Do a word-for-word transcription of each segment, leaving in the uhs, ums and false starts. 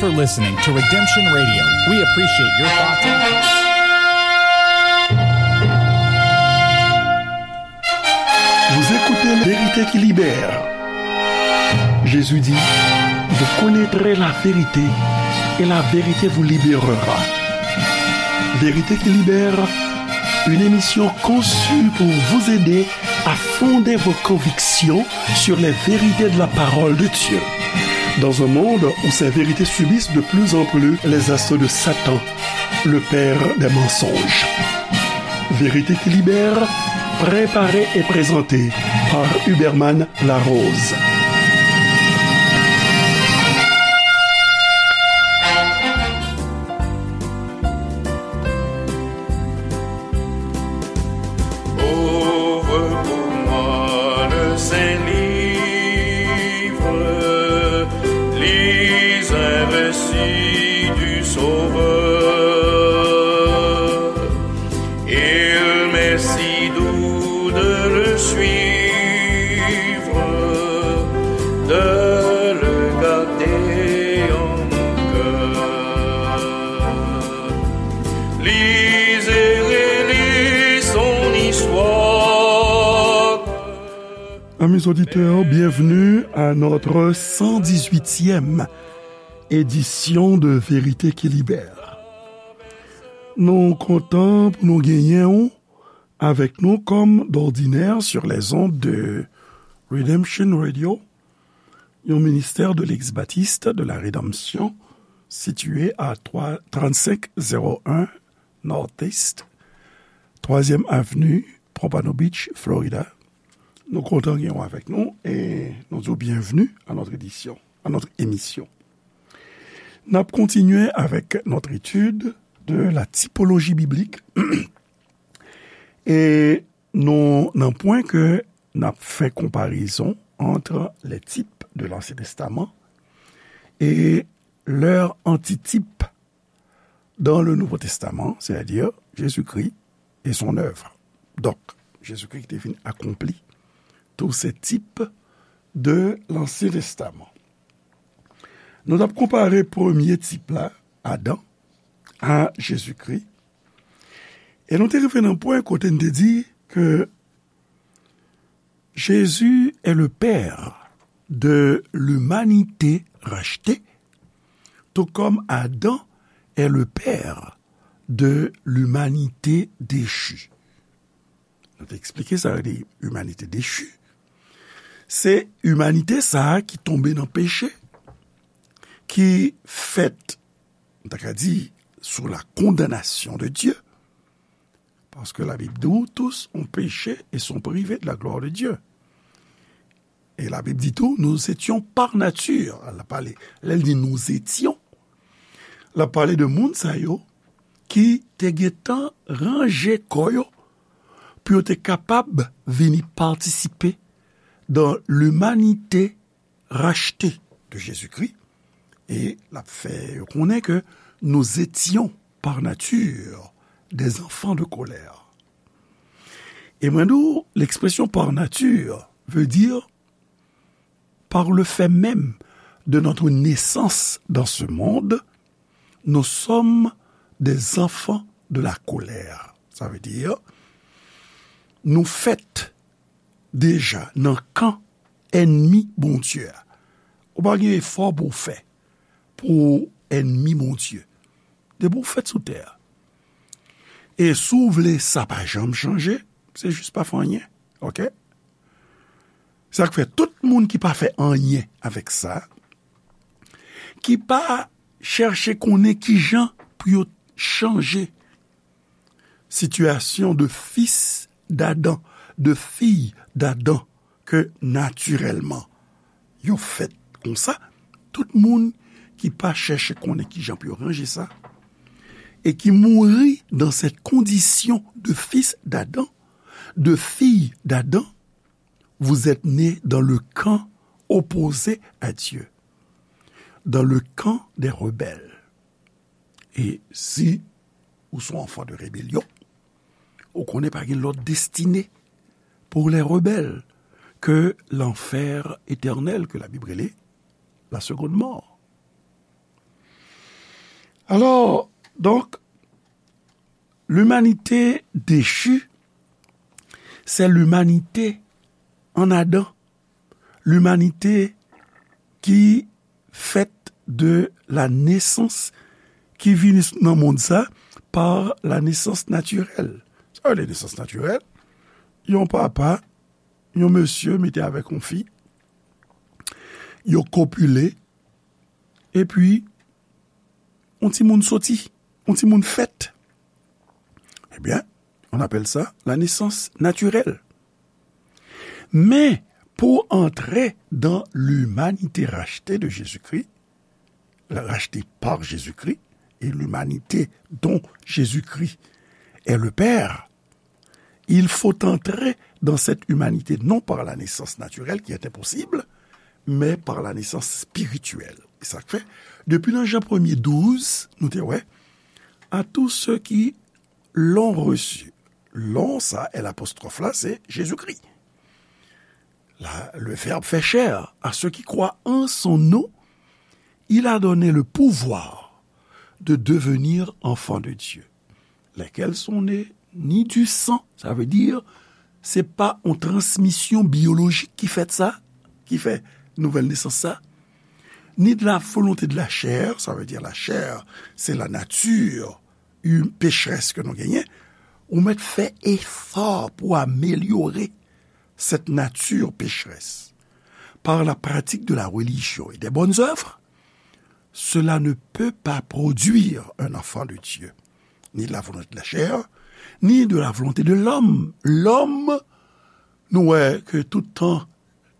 for listening to Redemption Radio. We appreciate your thoughts and Vous écoutez Vérité qui libère. Jésus dit, vous connaîtrez la vérité et la vérité vous libérera. Vérité qui libère, une émission conçue pour vous aider à fonder vos convictions sur les vérités de la parole de Dieu. Dans un monde où ces vérités subissent de plus en plus les assauts de Satan, le père des mensonges. Vérité qui libère, préparée et présentée par Huberman Larose. Ouvre pour moi le saint livre, lis un récit du Sauveur. Il m'est si doux de le suivre, de le garder en mon cœur. Lis et relis son histoire. Amis auditeurs, bienvenue à notre cent dix-huitième édition de Vérité qui Libère. Nou kontan pou nou genyen w avèk nou comme d'ordinaire sur les ondes de Redemption Radio, yon ministère de l'ex-baptiste de la rédemption situé à trois, trente-cinq zéro un Northeast, troisième avenue, Pompano Beach, Florida. Nou kontan gen w avèk nou e nou di w bienvenue à notre édition, à notre émission. N ap kontinye avèk notre étude de la typologie biblique. E nou nan pwen ke n ap fè konparezon entre les types de l'Ancien Testament et leur antitype dans le Nouveau Testament, c'est-à-dire Jésus-Christ et son œuvre. Donk, Jezikri ki te vin akonpli tous ces types de l'Ancien Testament. Nou t ap konpare premye tip la, Adan, a Jezikri. E nou te rive nan pwen kote n te di ke Jésus est le père de l'humanité rachetée, tout comme Adam est le père de l'humanité déchue. Nou te eksplike sa yo di imanite dechi. Se imanite sa a ki tonbe nan peche, ki fèt, nou ta ka di, sous la condamnation de Dieu. Parce que la Bible dit, tous ont péché et sont privés de la gloire de Dieu. E Labib di tou, nous étions par nature. L ap pale, lè l di nous étions, l ap pale de moun sa yo ki te gentan ranje kò yo pou yo te kapab vini patisipe dans l'humanité rachetée de Jésus-Christ. E l ap fè yo konnen ke nous étions par nature des enfants de colère. E mwen di w, l'expression par nature veut dire par le fait même de notre naissance dans ce monde, nous sommes des enfants de la colère. Sa vle di, nou fèt deja nan kan ènmi Bondye a. Ou pa gen efò pou w fè pou w ènmi Bondye. Depi w fèt sou tè a. E si w vle sa pa janm chanje, se jis pa fè anyen. Oke? Sa k fè tout moun ki pa fè anyen avèk sa, ki pa chèche konnen kijan pou yo chanje sitiyasyon de fis d'Adan, de fiy d'Adan, ke natirèlman yo fèt konsa, tout moun ki pa chèche konnen kijan pou yo ranje sa, et qui mourut dans cette condition de fils d'Adam, de fille d'Adam, vous êtes nés dans le camp opposé à Dieu, dans le camp des rebelles. E si ou se yon anfan de rebelyon, ou konnen pa gen lòt destine pour les rebelles ke lanfè etènèl ke Labib rele la seconde mort. Alors, donc, l'humanité déchue, c'est l'humanité en Adam, l'humanité ki fèt de la nesans ki vini nan mond sa par la nesans natirèl. Sa vle di nesans natirèl, yon papa, yon mesye mete avèk yon fi, yo kopile, epi yon timoun soti, yon timoun fèt. Ebyen, on appelle ça la naissance naturelle. Men, pou antre dans l'humanité rachetée de Jésus-Christ, rachetée par Jésus-Christ, et l'humanité dont Jésus-Christ est le Père, il faut entrer dans cette humanité non par la naissance naturelle, qui est impossible, mais par la naissance spirituelle. E sa k fè, depi nan Jan premye douz, nou te wè, à tous ceux qui l'ont reçu. L'ont, sa, L apostwòf la, se Jezikri. La, le Verbe fait chair, à ceux qui croient en son nom, il a donné le pouvoir de devenir enfants de Dieu, lesquels sont nés ni du sang, sa vle di, se pa yon transmisyon biyolojik ki fèt sa, ki fè nouvèl nesans sa, ni de la volonté de la chair, sa vle di la chè, se la nati hu-, pechrès ke nou genyen, ou mèt fè efò pou amelyore cette nature pécheresse par la pratique de la religion et des bonnes œuvres, cela ne peut pas produire un enfant de Dieu, ni de la volonté de la chair, ni de la volonté de l'homme. Lòm, nou wè ke tout tan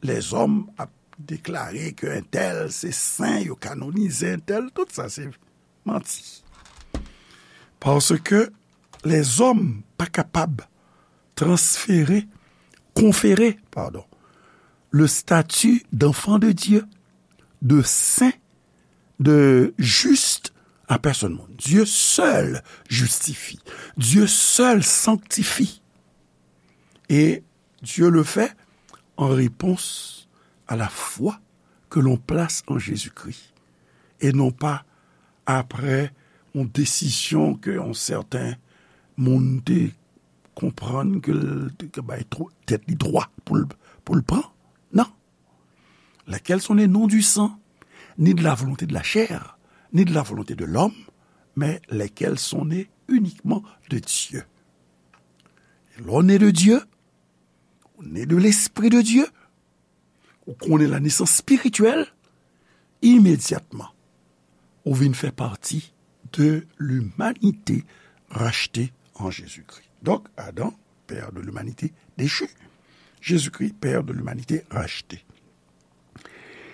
lèzòm ap deklare ke entèl se sen, yo kanonize entèl, tout sa se manti. Paske lèzòm pa kapab transfere, konfere, pardon, le statut d'enfant de Dieu, de saint, de juste à personne monde. Dieu seul justifie. Dieu seul sanctifie. Et Dieu le fait en réponse à la foi que l'on place en Jésus-Christ, et non pas après yon desizyon ke yon sèten moun te konprann ke l te bay tèt li dwa pou l, pou l pran. Non. Lesquels sont nés non du sang, ni de la volonté de la chair, ni de la volonté de l'homme, mais lesquels sont nés uniquement de Dieu. Lè w ne de Dye, ou ne de Lespri de Dye, ou konnen la nesans espirityèl, imedyatman, ou vin fè pati de limanite rachte an Jezikri. Donk, Adan, pè de limanite dechi. Jezikri, pè de limanite rachte.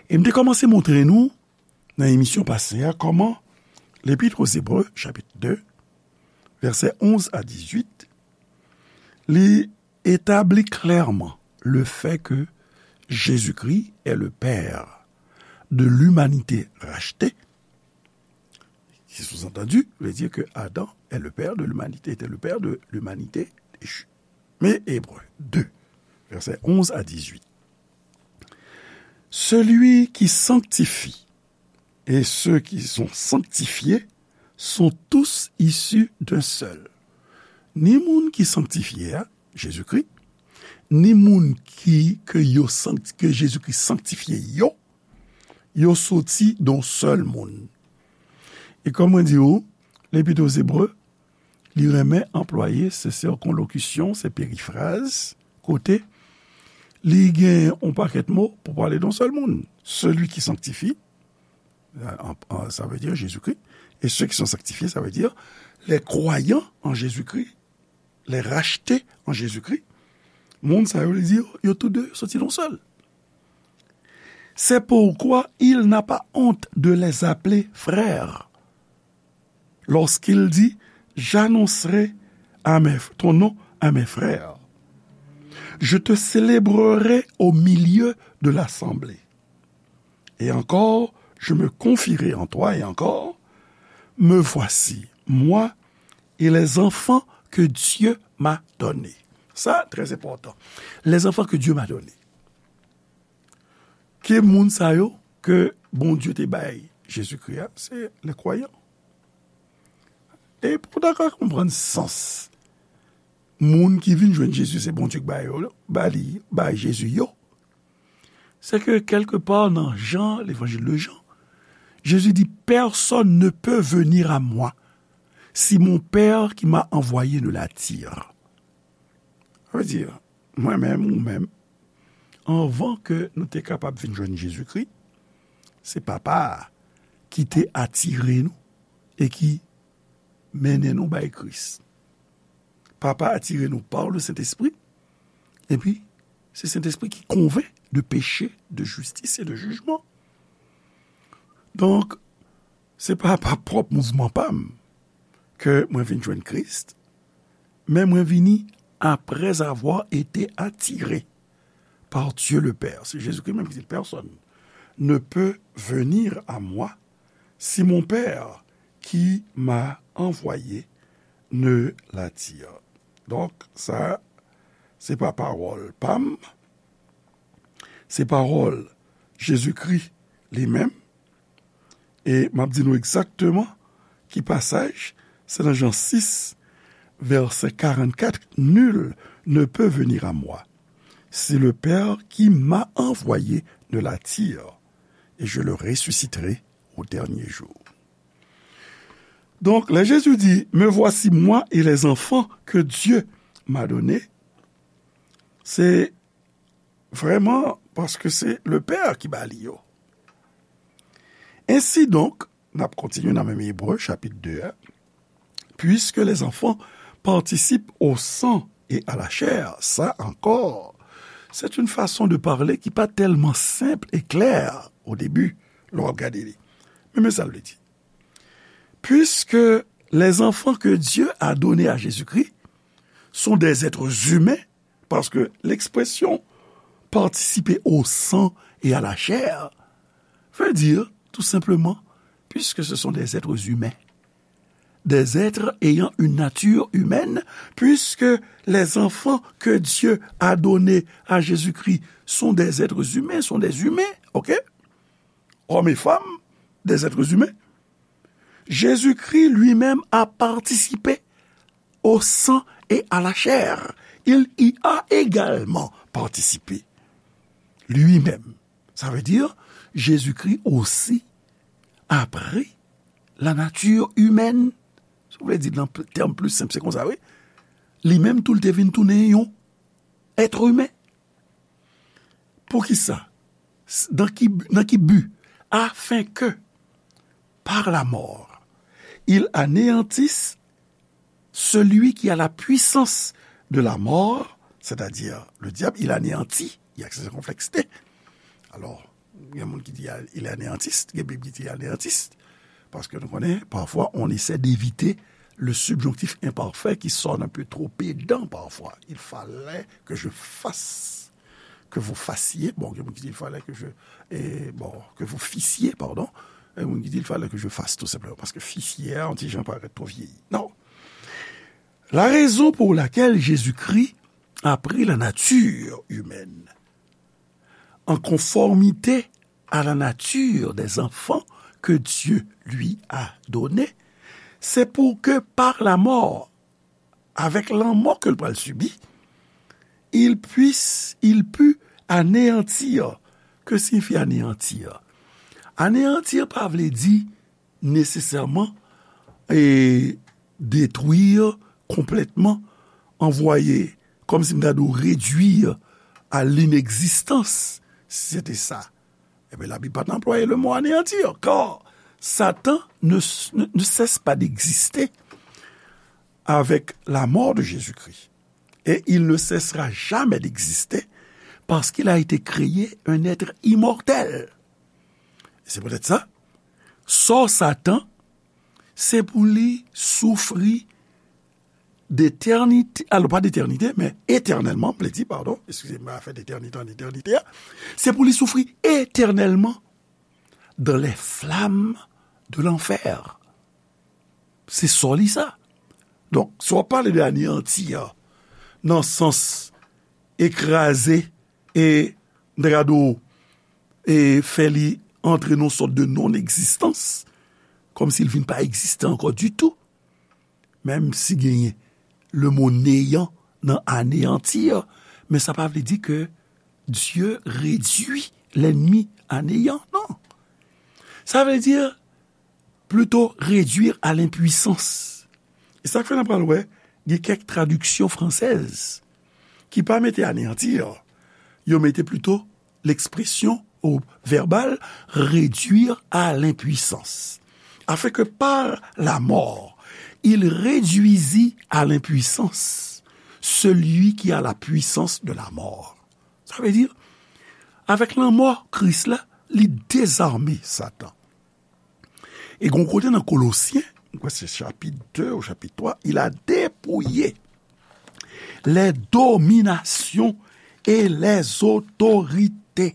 E m te kòmanse montre nou, nan emisyon pase a, kòman Lepit o Ebre, chapit de, vèsè onz a dizuit, li etabli klèman le fait que Jésus-Christ est le Père de l'humanité rachetée, qui sous-entendu veut dire que Adam est le père de l'humanité, était le père de l'humanité déchue. Mais Hébreux deux, versets onze à dix-huit. Celui qui sanctifie et ceux qui sont sanctifiés sont tous issus d'un seul. Ni moun ki sanktifye a, Jezikri, ni moun ki, ke yo sankti-, ke Jezikri sanktifye yo, yo soti de yon sèl moun. E kòm mwen di w, Lepit o Ebre, li renmen anplwaye se sikonlokisyon, se perifraz, kote li gen yon pakèt mo pou pale de yon sèl moun. Celui qui sanctifie, en, en, ça veut dire Jésus-Christ, et ceux qui sont sanctifiés, ça veut dire les croyants en Jésus-Christ, les rachetés en Jésus-Christ. Moun sa yo, li di, yo tou de soti de yon sèl. C'est pourquoi il n'a pas honte de les appeler frères, lorsqu'il dit, j'annoncerai à mes, ton nom à mes frères. Je te célébrerai au milieu de l'assemblée. Et encore, je me confierai en toi, et encore, me voici, moi et les enfants que Dieu m'a donnés. Sa, trè enpòtan. Les enfants que Dieu m'a donnés. Ki moun sa yo ke Bondye te bay Jezikri a? Se les croyants. E pou w ta ka konprann sans moun ki vin jwenn Jezi, se Bondye ki ba yo, ba li, ba Jezi yo, se ke kèlkepa nan Jan, l'évangile de Jean, Jésus dit, personne ne peut venir à moi si mon Père qui m'a envoyé ne l'attire. Sa vle di, mwen menm, ou menm, anvan ke nou te kapab vin jwenn Jezikri, se Papa a ki te atire nou e ki mennen nou bay Kris. Papa atire nou par le Saint-Esprit, epi se Sentespri ki konvenk de peche, de jistis e de jijman. Donk, se pa pa pwòp mouvman pa m ke mwen vin jwenn Kris, men mwen vini après avoir été attiré par Dieu le Père. Se Jezikri menm ki di, personne ne peut venir à moi si mon Père qui m'a envoyé ne l'attire. Donk, sa, se pa pawòl pa m, se pawòl Jezikri li menm. E m ap di nou egzakteman ki pasaj, se nan Jan sis, vèsè karannkat, nul ne peut venir à moi si le Père qui m'a envoyé ne l'attire, et je le ressusciterai au dernier jour. Donk, lè Jezi di, me voici moi et les enfants que Dieu m'a donnés, se vrèman paske se le Père ki ba li yo. Ainsi donc, n ap kontinye nan menm Ebre, chapit de a, puisque les enfants participent au sang et à la chair, sa encore, c'est une façon de parler ki pa tèlman senp e klè o debi, lè w ap gade li. Men, men sa l vle di. Puisque les enfants que Dieu a donnés à Jésus-Christ sont des êtres humains, parce que l'expression participer au sang et à la chair veut dire, tout simplement, puisque ce sont des êtres humains, des êtres ayant une nature humaine, puisque les enfants que Dieu a donnés à Jésus-Christ sont des êtres humains, sont des humains, ok? Hommes et femmes, des êtres humains. Jésus-Christ lui-même a participé au sang et à la chair. Il y a également participé lui-même. Ça veut dire, Jésus-Christ aussi a pris la nature humaine. Si w vle di nan tèm pli senp, se konsa, wi. Li menm tou, l te vin tounen yon èt imen. Poukisa? S-, dans qui bu-, dans qui but? Afin que, par la mort, il anéantisse celui qui a la puissance de la mort, c'est-à-dire le diable, il anéantit, il y a ce complexe. Alors, il y a moun ki di, il anéantisse, il y a Bib ki di anéantisse. Parce que nous connaissons, parfois, on essaie d'éviter le subjonctif imparfait qui sonne un peu trop pédant parfois. Il fallait que je fasse, que vous fassiez. Bon, il fallait que je, et bon, que vous fissiez, pardon. Et on dit, il fallait que je fasse, tout simplement. Parce que fissiez, on dit, j'en paraît trop vieilli. Non. La raison pour laquelle Jésus-Christ a pris la nature humaine en conformité à la nature des enfants que Dieu lui a donnés, c'est pour que par la mort, avec la mort que le pral subir, il puisse, il put anéantir. Que signifie anéantir? Anéantir pa vle di nesesèman e detwi konplètman, anvwaye, kòmsi m ta di w, redwi a linegzistans, si se te sa, ebyen, Labib pa t anplwaye le mot anéantir, car Satan ne, ne, ne cesse pas d'exister avec la mort de Jésus-Christ. Et il ne cessera jamais d'exister parce qu'il a été créé un être immortel. Se poutèt sa, sò Satan, se pou li soufri d'éternité, alors pas d'éternité, mais éternellement, m vle di, pardon, excusez-moi, afè d'éternité en éternité, se pou li soufri éternellement dans les flammes de l'enfer. Se sò li sa. Donk, si w ap pale de anéanti a, nan sans ekraze e, m ta ka di w, e fè li antre nan yon sòt de non-egzistans, kòmsi l vin pa egziste ankò ditou. menm si genyen le mo néant nan anéantir, men sa pa vle di ke Dye redui lènmi a néyan, non. Sa vle di plito réduire à l'impuissance. E sa k fè n ap pral wè, gen kèk tradiksyon fransèz ki pa mete anéantir, yo mete plito l'expression au verbal réduire à l'impuissance. Afin que par la mort, il réduisit à l'impuissance celui qui a la puissance de la mort. Sa vle di, avèk lanmò Kris la, li dezame Satan. E gon kote nan Kolosyen, mwen kwè se chapit de ou chapit twa, il a dépouillé les dominations et les autorités.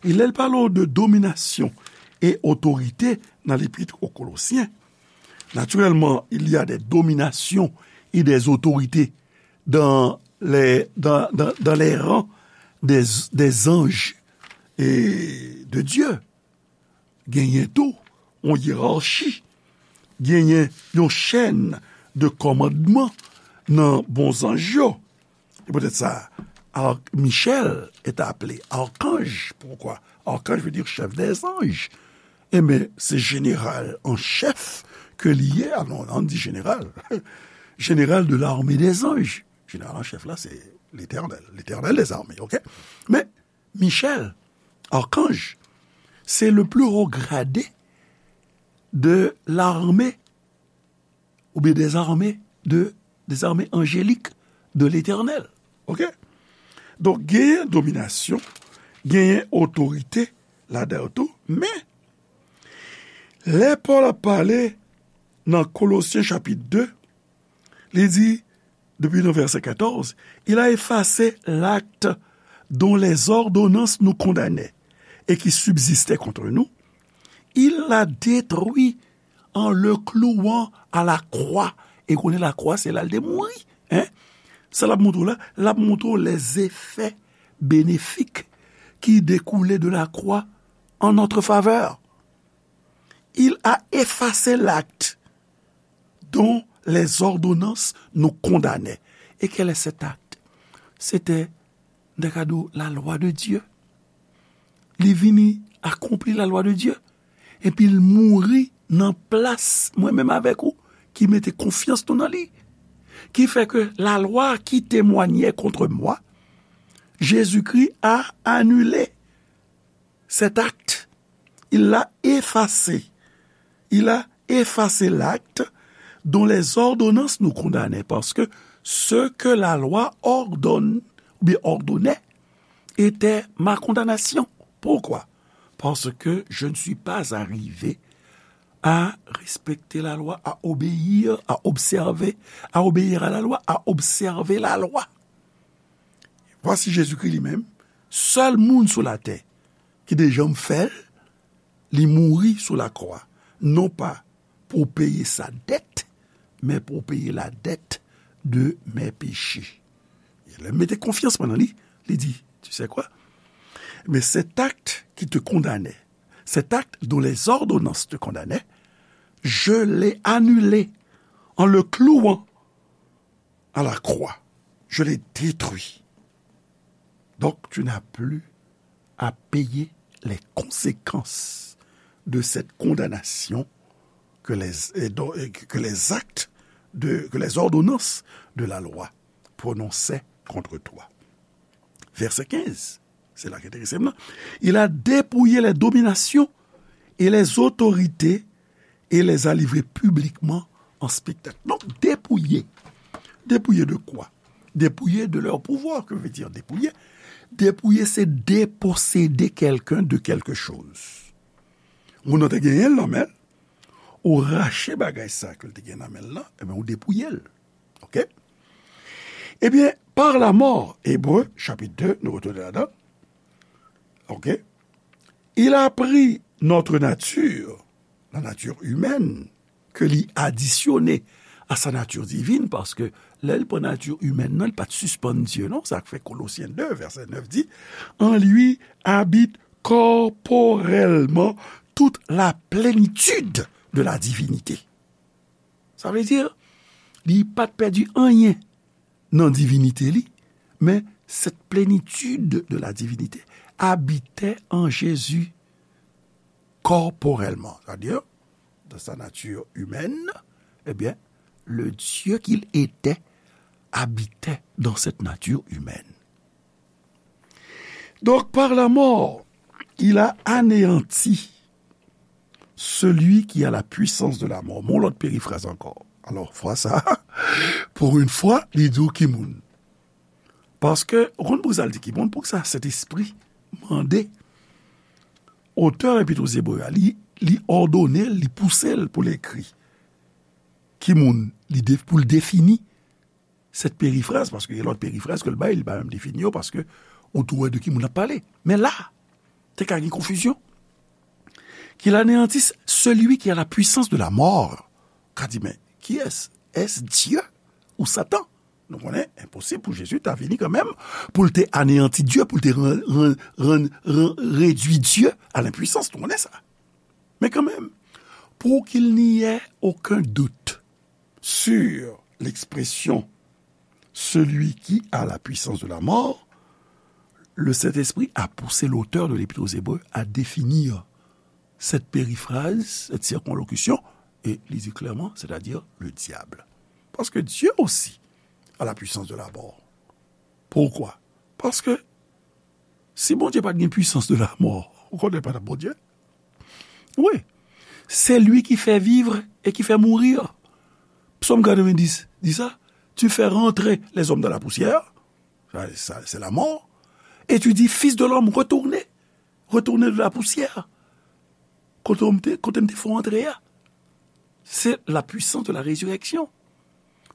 E lè l pale de domination et autorité nan Lépître aux Colossiens, naturellement, il y a des dominations et des autorités dans les, dans, dans, dans les rangs des, des anges et de Dieu. Genyen tou yon yerachi, genyen yon chèn de kòmandman nan bon zanj yo. E poutèt sa, Ar-, Michel est appelé archange. Pourquoi? Archange veut dire chef des anges. Enben, se jeneral an chèf ke li ye. Ah non, ann di jeneral. Général de l'armée des anges. Jeneral an chèf la, se Letènèl, Letènèl dèzame, oke? Men, Michel, archange, c'est le plus haut gradé de l'armée, oubyen des armées, de, des armées angéliques de l'Éternel. Oke? Donk, genyen dominasyon, genyen otorite ladan yo tou, men lè Pòl ap pale nan Kolosyen chapit de, li di, depi nan vèsè katòz, il a effacé l'acte dont les ordonnances nous condamnaient et qui subsistait contre nous. Il l'a détruit en le clouant à la croix. E konnen lakwa, se la l te mouri. Hein? Sa l ap montre w la, l ap montre w les effets bénéfiques qui découlaient de la croix en notre faveur. Il a effacé l'acte dont les ordonnances nous condamnaient. Et quel est cet acte? C'était, m ta ka di w, la loi de Dieu. Li vini akonpli la loi de Dieu. Epi l mouri nan plas mwen menm avèk ou ki mete konfyans nou nan li. Ki fè ke la loi qui témoignait contre moi, Jésus-Christ a annulé cet acte. Il l'a effacé. Il a effacé l'acte dont les ordonnances nous condamnaient, parce que ce que la loi ordonne, ou bien ordonnait, était ma condamnation. Pourquoi? Parce que je ne suis pas arrivé à respecter la loi, à obéir, à observer, à obéir à la loi, à observer la loi. Vwasi Jezikri li menm, sèl moun sou latè ki te janm fè l, li mouri sou lakwa, non pa pou peye sa dèt, men pou peye la dèt de mes péchés. E lè m mete konfyans mwen nan li, li di, tu sais quoi? Mais cet acte qui te condamnait, cet acte dont les ordonnances te condamnaient, je l'ai annulé en le clouant à la croix. Je l'ai détruit. Donc, tu n'as plus à payer les conséquences de cette condamnation que les, et dont- et que les actes de, que les ordonnances de la loi prononçaient contre toi. Verset quinze, c'est là qui est intéressant. Il a dépouillé les dominations et les autorités et les a livrés publiquement en spectacle. Donc, dépouiller. Dépouiller de quoi? Dépouiller de leur pouvoir. Que veut dire dépouiller? Dépouiller, c'est déposséder quelqu'un de quelque chose. Moun nan te genyen l nan men l, ou rache bagay sa ke l te gen nan men l lan, ebyen, ou depouye l. Oke? Ebyen, par la mort, Ebre, chapit de, nou retounen ladan. Oke? Il a pris notre nature, la nature humaine, ke li adisyone a sa nati divin, paske lè l pran nati imèn nan, li pa t sispann Dye, non? Sa k fè Kolosyen de, vèsè nèf di, en lui habite corporellement toute la plénitude de la divinité. Sa vle di, Li pa t pèdi anyen nan divinite li, mais cette plénitude de la divinité habitait en Jésus corporellement. C'est-à-dire, dans sa nature humaine, eh bien, le Dieu qu'il était habitait dans cette nature humaine. Donc, par la mort, il a anéanti celui qui a la puissance de la mort. Mon lòt perifraz ankò. Alò, fwa sa, pou yon fwa, li di w ki moun. Paske, ou konn pou sa l di ki moun, pou sa Sentespri mande otè Epit aux Hébreux a, li, li òdone l, li pouse l pou l ekri ki moun, li de, pou l defini sèt perifraz, paske gen lòt perifraz ke l bay, li pa menm defini yo, paske ou tou wè de ki moun l ap pale. Men la, te ka gen konfizyon. Qu'il anéantisse celui qui a la puissance de la mort. Ka di, men, kiyès? Est-ce Dieu ou Satan? Nou konnen, enposib pou Jezi ta vini kanmenm, pou l te aneyanti Dye, pou l te ran, ran, ran, ran, redui Dye a lenpwisans. Nou konnen sa. Men kanmenm, pour qu'il n'y ait aucun doute sur l'expression celui qui a la puissance de la mort, le Saint-Esprit a poussé l'auteur de l'Épître aux Hébreux à définir cette périphrase, cette circonlocution, et li di klèman, c'est-à-dire le diable. Parce que Dieu aussi a la puissance de la mort. Pourquoi? Paske si Bondye pa t gen puissance de la mort, ou konnen pa t ap Bondye? Oui. C'est lui qui fait vivre et qui fait mourir. Psaume quatre-vingt-dix dit ça. Tu fais rentrer les hommes dans la poussière. Ça, ça, c'est la mort. Et tu dis, fils de l'homme, retournez. Retournez de la poussière. Kote m te, kote m te fè w antre a. C'est la puissance de la résurrection.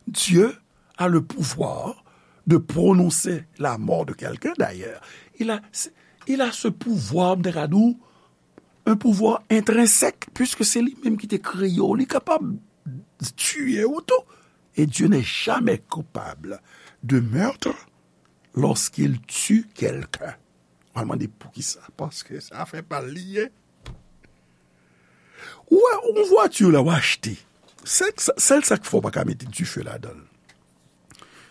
Dieu a le pouvoir de prononcer la mort de quelqu'un, d'ailleurs. Il a, il a ce pouvoir, m te ka di w, un pouvoir intrinsèque, puisque c'est lui-même qui te créé. Li kapab tiye ou tou. Et Dieu n'est jamais coupable de meurtre lorsqu'il tue quelqu'un. W al mande poukisa? Paske se afè pa l li ye. Ou wè, yon vwati la w achte. Sèl, sèl sa k fè w pa ka mete dife ladan l.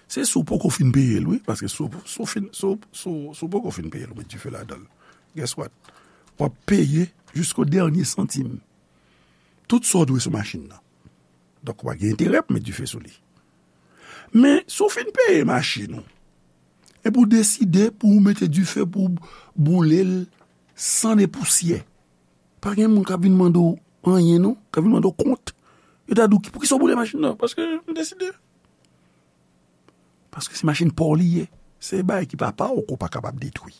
Se si w poko fin peye l, wi. Paske si w, si w fin, si w, si w, si w poko fin peye l, ou met dife ladan l. Guess what? W ap peye jisko dènye santim. Tout sa w dwe sou machin nan. Donk, w pa gen enterè pou met dife sou li. Men, si w fin peye machin ou, epi w deside pou w mete dife pou w boule l san de pousyè, pa gen moun k ap vin mande w anyen, non, k ap vin mande w kont. Yo ta di w, poukisa w boule machin nan? Paske m deside. Paske se machin pa w li ye. Se bagay ki pa pa w ke w pa kapab detwi.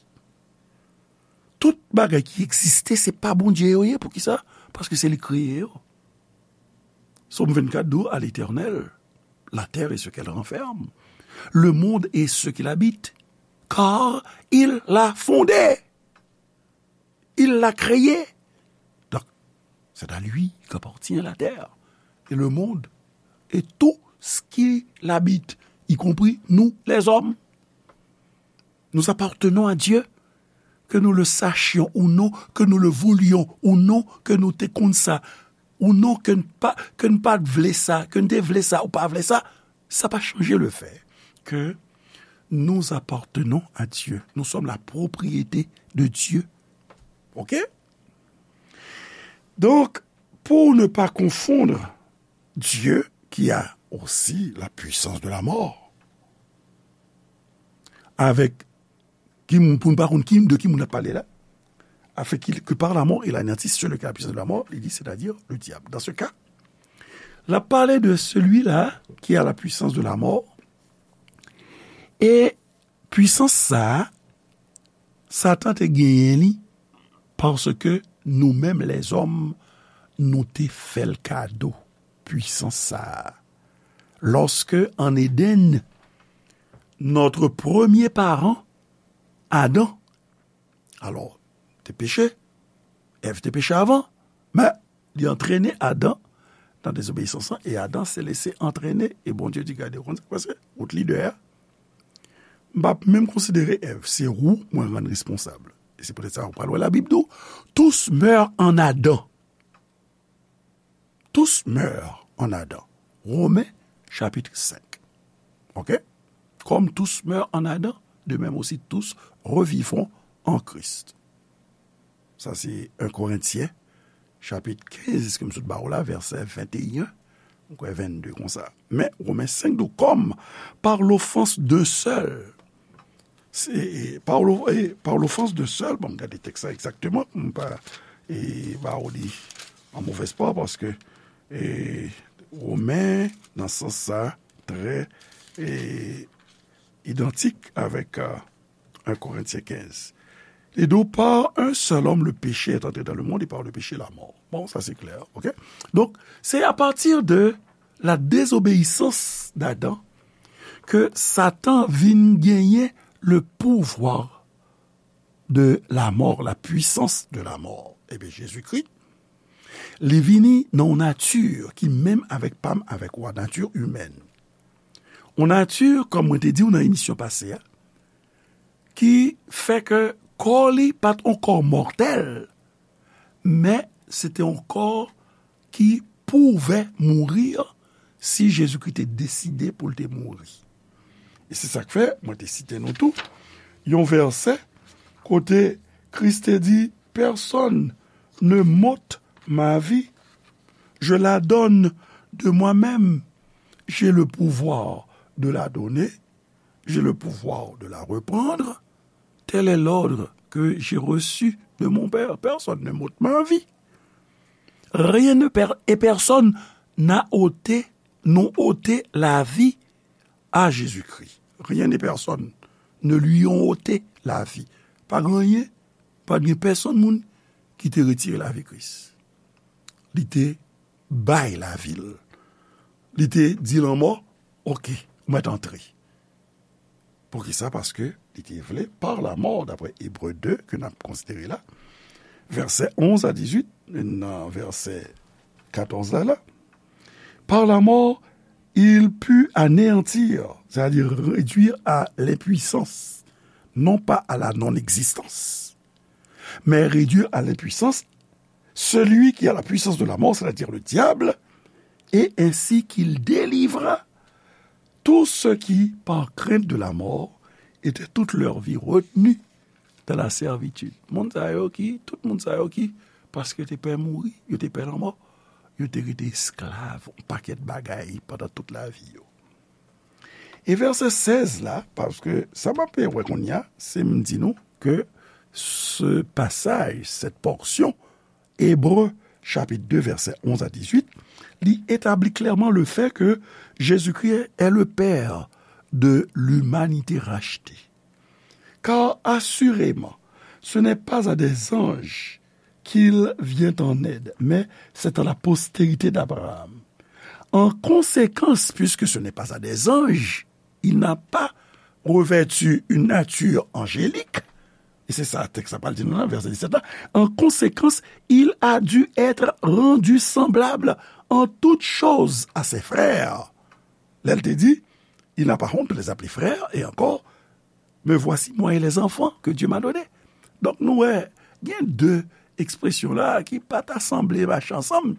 Tout bagay ki egziste, se pa Bondye yo ye. Poukisa? Paske se li k kreye yo. Sòm vennkat di w, à l'Éternel, la terre et ce qu'elle renferme, le monde et ce qu'il habite, car il l'a fondé. Il l'a créé. Donc, c'est à lui qu'appartient la terre et le monde et tout ce qui l'habite, y compris nous, les hommes. Nous appartenons à Dieu, que nous le sachions ou non, que nous le voulions ou non, ke nou te konn sa ou non, ke n pa, ke n pa t vle sa, ke n te vle sa ou pa vle sa, ça pas changer le fait que nous appartenons à Dieu. Nous sommes la propriété de Dieu. OK? Donc, pour ne pas confondre Dieu, qui a aussi la puissance de la mort, avec ki moun, pou n pa konn ki, de ki moun ap pale la, afin qu'il, que par la mort il anéantisse celui qui a la puissance de la mort, li di, c'est-à-dire le diable. Dans ce cas, l ap pale de celui-là qui a la puissance de la mort, e pwisans sa a, Satan te genyen li, paske nou menm lèzòm, nou te fè l kado pwisans sa a. Lorsque, en Éden, notre premier parent, Adam, alors, te peche, Èv te peche avan, men li antrene Adan nan dezobeyisans lan, e Adan se lese antrene, e Bondye di, gade, ou konn sa k pase, wout li dèyè. M p ap menm konsidere Èv, se ou mwen rann responsab. E se poutèt sa, ou pral wè Labib di w, tous meurent en Adam. Tous meurent en Adam. Women chapitre cinq. Ok? Comme tous meurent en Adam, de même aussi tous revivront en Christ. Sa se un Korentyen, chapit kenz, ke m sot ba w la, vèsè venteyen, m kwè vennde konsa. Men, Romen senk di, comme par l'offense d'un seul, se, e, par lo-, e, par l'offense d'un seul, bon, m gade tèks la egzakteman, pou m pa, e, ba w li an movèz pwa, paske, e, Romen, nan sans sa, trè, e, idantik avèk, e, un Korentyen kenz. Li di, par un seul homme, le péché est entré dans le monde, et par le péché, la mort. Bon, sa se klè, ok? Donk, se apati de la désobéissance d'Adam ke Satan vin genyen le pouvoir de la mort, la puissance de la mort. Ebyen, Jezikri, li vini nan yon nati ki menm avèk pa m, avèk ou a, nati imèn. Yon nati, kòm mwen te di w nan emisyon pase a, ki fè ke kò li pa t yon kò mòtèl, men se te yon kò ki pouvè mouri si Jezikri te deside pou l te mouri. E se sa k fè, mwen te site nou tou, yon vèsè kote Kris te di, personne ne m'ôte ma vie, je la donne de moi-même, j'ai le pouvoir de la donner, j'ai le pouvoir de la reprendre, tel est l'ordre que j'ai reçu de mon Père. Personne ne m'ôte ma vie. Rien ne per-, et personne n'a ôté, n'ont ôté la vie à Jésus-Christ. Rien et personne ne lui ont ôté la vie. Pa gen anyen, pa gen pèsonn moun ki te retire lavi Kris. Li te bay lavi l. Li te di lanmò, oke, ou mèt antre. Poukisa? Paske li te vle, par la mort, d'après Hébreux deux, ke n ap konsidere la, vèsè onz a dizuit, nan vèsè katòz la, la, par la mort, il put anéantir, c'est-à-dire réduire à l'impuissance, non pas à la non-existence, mais réduire à l'impuissance celui qui a la puissance de la mort, c'est-à-dire le diable, et ainsi qu'il délivra tous ceux qui, par crainte de la mort, étaient toute leur vie retenus dans la servitude. Moun sa yo ki, tout moun sa yo ki, paske yo te pè mouri, yo te pè lanmò, yo te rete esklav yon pakèt bagay pandan tout lavi yo. E vèsè sèz la, paske sa m ap wè kounye a, se m di nou ke ce passage, cette portion, Ebre, chapit de, vèsè onz a dizuit, li etabli klèman le fait que Jésus-Christ est le Père de l'humanité rachetée. Car assurément, ce n'est pas à des anges qu'il vient en aide, mais c'est à la postérité d'Abraham. En conséquence, puisque ce n'est pas à des anges, il n'a pas revêtu une nature angélique, et c'est ça, texte la pral di nou nan vèsè disèt la, en conséquence, il a dû être rendu semblable en toutes choses à ses frères. Lè l te di, il n'a pas honte de les appeler frères, et encore, me voici, moi et les enfants que Dieu m'a donnés. Donk, nou wè, gen de ekspresyon la ki pa ta sanble mache ansanm.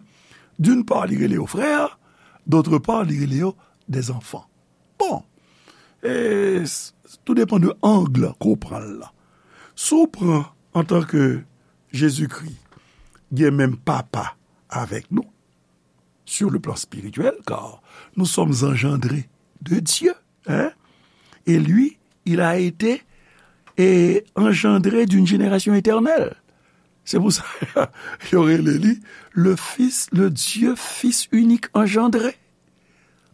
D'une part, li rele yo frè, d'autre part, li rele yo des enfants. Bon, e, s-, tou depann de ang ke w pran l la. Si w pran antanke Jezikri gen menm papa avèk nou, sur le plan spirituel, car nous sommes engendrés de Dieu, hein? Et lui, il a été, et engendré d'une génération éternelle. Se pou sa, yo rele li le Fils, le Dieu Fils unique engendré.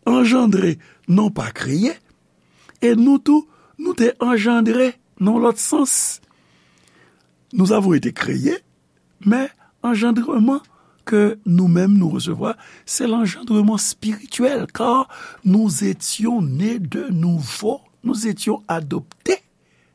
Engendré, non pas créé. E nou tou, nou te engendré nan lòt sans. Nous avons été créés, men anjandreman ke nou menm nou resevwa, se lanjandreman spirityèl, car nous étions nés de nouveau, nous étions adoptés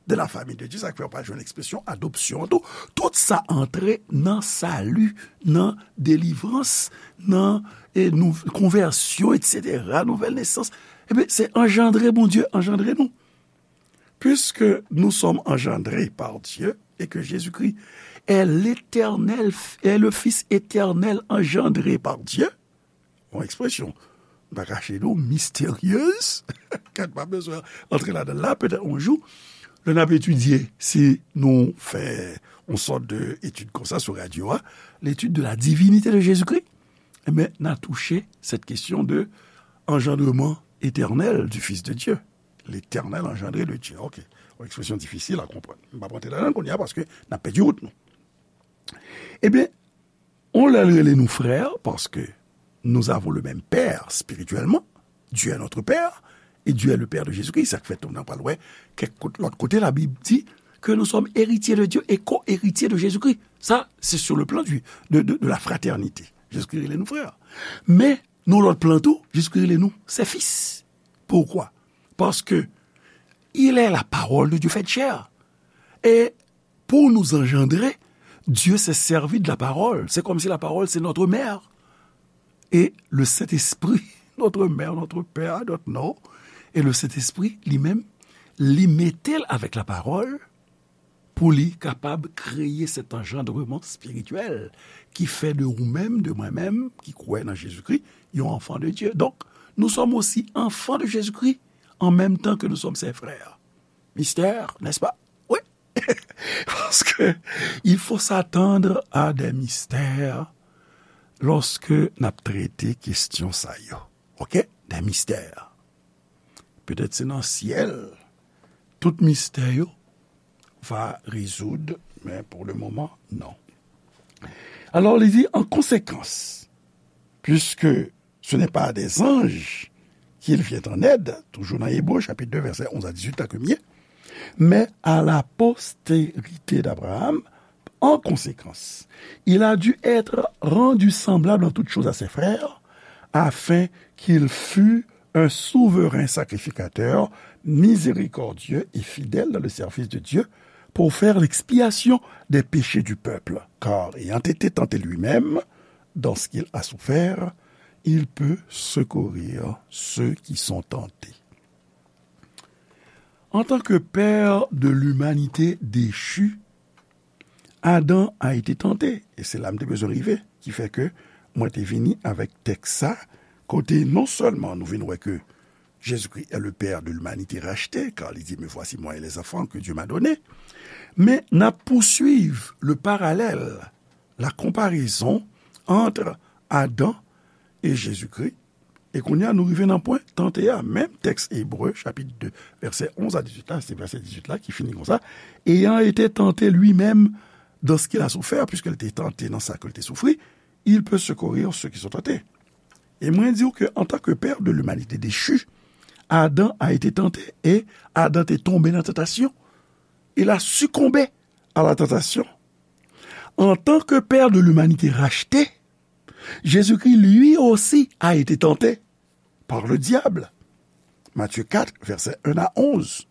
de la famille de Dieu. Sa k fè w pa jwenn ekspresyon adopsyon an tou. Tout sa antre nan sali, nan delivrans, nan, e, nou, konvèsyon, etsetera, nouvèl nesans. Ebyen, se anjandre Bondye anjandre nou. Puisque nous sommes engendrés par Dieu et que Jésus-Christ est l'Éternel, est le Fils éternel engendré par Dieu, yon ekspresyon, m pa kache nou, misteryez, ke n pa bezwen antre ladan l la, petèt yon jou, lè n ap etidye, si nou fè yon sòt de etid konsa sou radyo a, l'étude de la divinité de Jésus-Christ, ebyen, n a touche cette question de engendrement éternel du Fils de Dieu. L'éternel engendré de Dieu. Ok. Yon ekspresyon difisil a konprann. M p ap rantre ladan l kounye a paske n ap pèdi wout nou. Ebyen, on lè l rele nou frè, paske nous avons le même père spirituellement. Dieu est notre père et Dieu est le père de Jésus-Christ. Sa k fè tou nou pral wè kèk kot, lòt kote Labib di que nous sommes héritiers de Dieu et co-héritiers de Jésus-Christ. Sa, se sur le plan du, de, de, de la fraternité. Jezikri rele nou frè. Men, nan lòt plan tou, Jezikri rele nou ses fils. Pourquoi? Parce que il est la parole de Dieu faite chair. Et pour nous engendrer, Dieu s'est servi de la parole. C'est comme si la parole, c'est notre mère. Et le Saint-Esprit, notre mère, notre père, notre non. Et le Saint-Esprit, li menm, li mete l avèk la parole, pou li kapab kreye cet engendrement spirituel ki fè de ou menm, de mwen menm, ki kwè nan Jezikri, yon enfant de Dieu. Donc, nous sommes aussi enfants de Jésus-Christ en même temps que nous sommes ses frères. Mystère, n'est-ce pas? Oui. Parce que il faut s'attendre à des mystères lorsque n ap trete kesyon sa yo. Ok? Des mystères. Petèt se nan syèl tout mistè yo va rezoud, men pour le moment, non. Alors, li di, en conséquence, puisque ce n'est pas à des anges qu'il vient en aide, toujours dans Hébreux chapitre deux, verset onze à dix-huit, là que m ye, mais à la postérité d'Abraham, en conséquence, il a dû être rendu semblable en toutes choses à ses frères, afin qu'il fût un souverain sacrificateur, miséricordieux et fidèle dans le service de Dieu, pour faire l'expiation des péchés du peuple. Car, ayant été tenté lui-même dans ce qu'il a souffert, il peut secourir ceux qui sont tentés. En tant que père de l'humanité déchue, Adam a été tenté, e se la m te bezwen rive, ki fè ke mwen te vini avèk tèks sa, kote non sèlman nou vin wè ke Jésus-Christ est le père de l'humanité rachetée, car li di, me voici moi et les enfants que Dieu m'a donnés, men n ap pouswiv le parallèl, la comparaison entre Adam et Jésus-Christ, e kounye a, nou rive nan pwen tante a. Menm tèks Ebre, chapit de, vèsè onz a dizuit la, se vèsè dizuit la ki fini konsa, ayant été tenté lui-même dans ce qu'il a souffert, puisqu'il était tenté dans ça qu'il te soufri, il peut secourir ceux qui sont tentés. E mwen di w ke, en tant que père de l'humanité déchue, Adam a été tenté, et Adam te tonbe nan tantasyon. Il a succombé à la tentation. En tant que père de l'humanité rachetée, Jésus-Christ, lui aussi, a été tenté par le diable. Matthieu quatre, versets un à onze.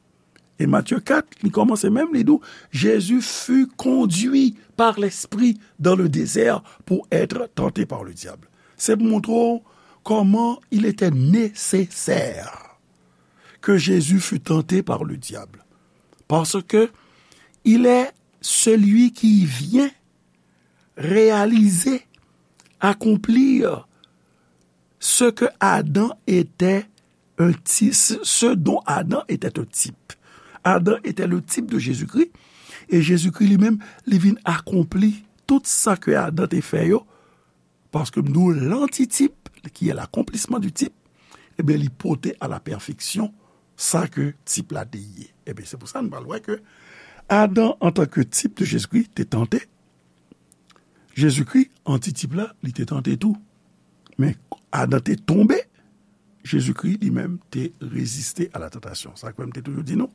E Matthieu quatre, li kòmanse menm, li di w, Jésus fut conduit par l'Esprit dans le désert pour être tenté par le diable. Se pou montre w kòman il était nécessaire que Jésus fût tenté par le diable. Parce que il est celui qui vient réaliser, accomplir ce que Adam était un ti-, ce, ce dont Adam était un type. Adam était le type de Jésus-Christ, e Jezikri li menm, li vin akonpli tout sa ke Adam te fè yo, paske m di w, lantitip, qui est l'accomplissement du type, ebyen, li pote à la perfection sa ke tip la te ye. Ebyen, se pou sa nou pral wè ke Adam, antanke tip de Jezikri, te tante, Jezikri, antitip la, li te tante tou. Men Adan te tonbe, Jezikri li menm te reziste a la tantasyon. Sa k fè m te toujou di nou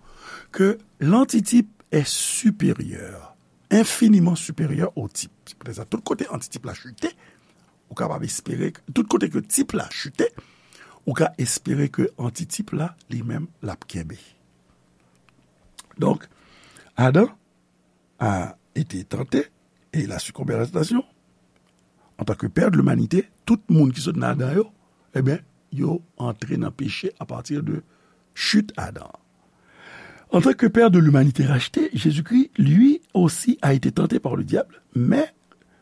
ke lantitip est supérieur, infiniment supérieur au type. Se poutèt sa, tout kote antitip la chite, ou kapab espere, tout kote ke tip la chite, ou ka espere ke antitip la, li menm, l ap kenbe. Donk, Adam a été tenté et il a succombé à la tentation. En tant que père de l'humanité, tout moun ki sot nan Adan yo, ebyen, yo antre nan peche à partir de chute Adam. En tant que père de l'humanité rachetée, Jésus-Christ, lui aussi, a été tenté par le diable, mais,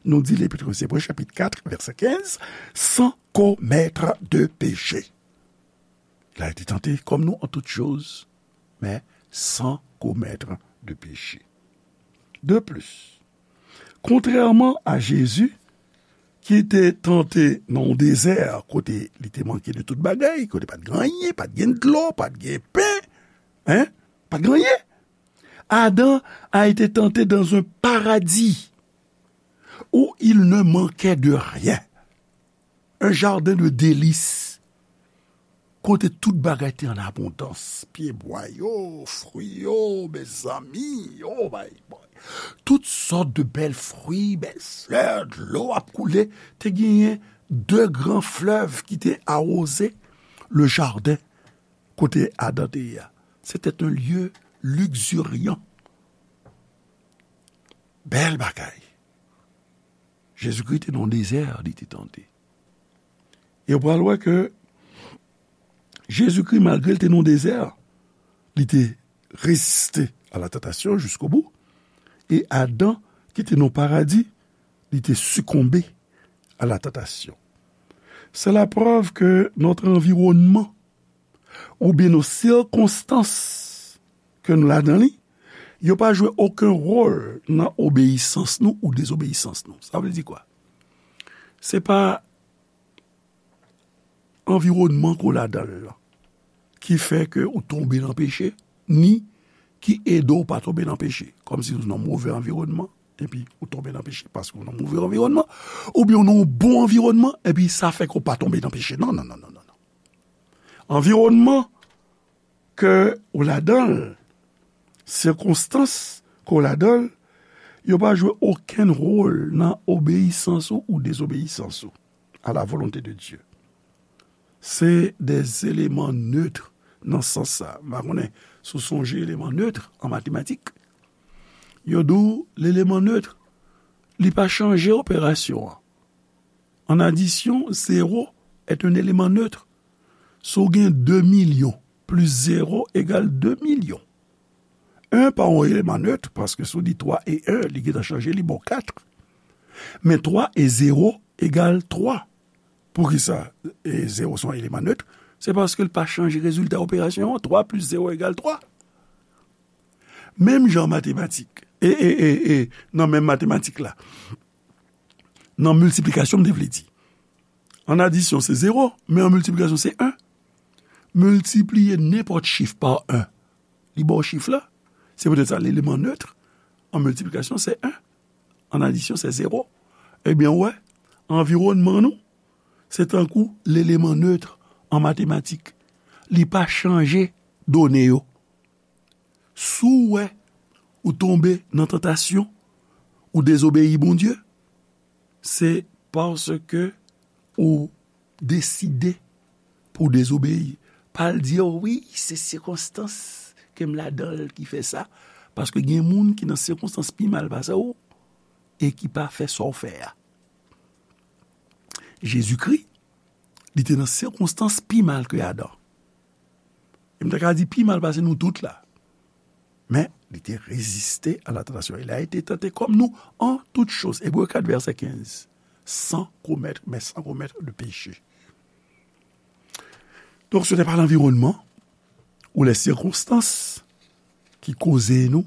nou di Lepit aux Hébreux, chapitre quatre, verset quinze, sans commettre de péché. Il a été tenté comme nous en toutes choses, mais sans commettre de péché. De plus, kontrèman a Jezi, ki te tante nan yon dezè kote li te manke de tout bagay, kote pa t gen anyen, pa t gen dlo, pa t gen pen, en, pa t gen anyen. Adam a été tenté dans un paradis où il ne manquait de rien. Un jardin de délices, kote tout bagay te an abondans. Pyebwa yo, fwi yo, mezanmi, oh my boy. Tout sòt de bèl fwi, bèl flè, dlo ap koule. Te genyen de gran flèv ki te awoze le jardin kote Adan te ye a. C'était un lieu luxuriant. Bèl bagay. Jezikri te nan dezè, li te tante. E w pral wè ke Jezikri, malgre l te nan dezè, li te reziste à la tentation jusqu'au bout. E Adan, ki te nan paradi, li te sikonbe à la tentation. C'est la preuve que notre environnement oubyen nos sirkonstans ke nou ladan li, yo pa jwe okenn wòl nan obeyisans nou ou dezobeyisans nou. Sa vle di kwa? Se pa anviwònman ke w ladan l lan ki fè ke ou tonbe nan peche, ni ki ede w pa tonbe nan peche. Kòmsi ou nan move anviwònman, epi ou tonbe nan peche paske ou nan move anviwònman, oubyen ou nan yon bon anviwònman, epi sa fè ke w pa tonbe nan peche. Non, non, non, non, non, non. Anviwònman ke w ladan l, sikonstans ke w ladan l, yo pa jwe okenn wòl nan obeyisans ou ou dezobeyisans ou à la volonté de Dieu. Se des éléments neutres nan sans sa. M pa konnen si w sonje eleman neutre an matematik. Yo di w, leleman neutre, li pa chanje operasyon an. En addition, zéro est un élément neutre. Si w gen de milyon plis zéro egal de milyon, en pa yon eleman neutre, paske si w di twa e en, li gentan chanje, li ba w kat. Men twa e zéro egal twa. Poukisa, e, zéro se yon eleman neutre? Se paske l pa chanje rezilta operasyon an. Twa plis zéro egal twa. Menm jan matematik, e, e, e, e, nan menm matematik la, nan miltiplikasyon, m te vle di. An adisyon, se zéro, men an miltiplikasyon, se en. Miltipliye nenpòt chif pa en, li ba w chif la. Se poutèt sa, leleman neutre an miltiplikasyon, se en. An adisyon, se zéro. Ebyen, w wè, anviwònman nou, se tankou leleman neutre an matematik. Li pa chanje done yo. Si w wè ou tonbe nan tantasyon, ou dezobeyi Bondye, se paske ou deside pou w dezobeyi. Pa al di, "O wi, se sikonstans ke m ladan l ki fè sa." Paske gen moun ki nan sikonstans pi mal pase w e ki pa fè sa w fè a. Jezikri, li te nan sikonstans pi mal ke Adan. E m ta ka di pi mal pase nou tout la. Men, li te reziste a la tantasyon. Il a été tenté comme nous en toutes choses. Ebre kat vèsè kenz. Sans commettre, mais sans commettre de péché. Donk, ce n'est pas l'environnement ou les circonstances ki koze nou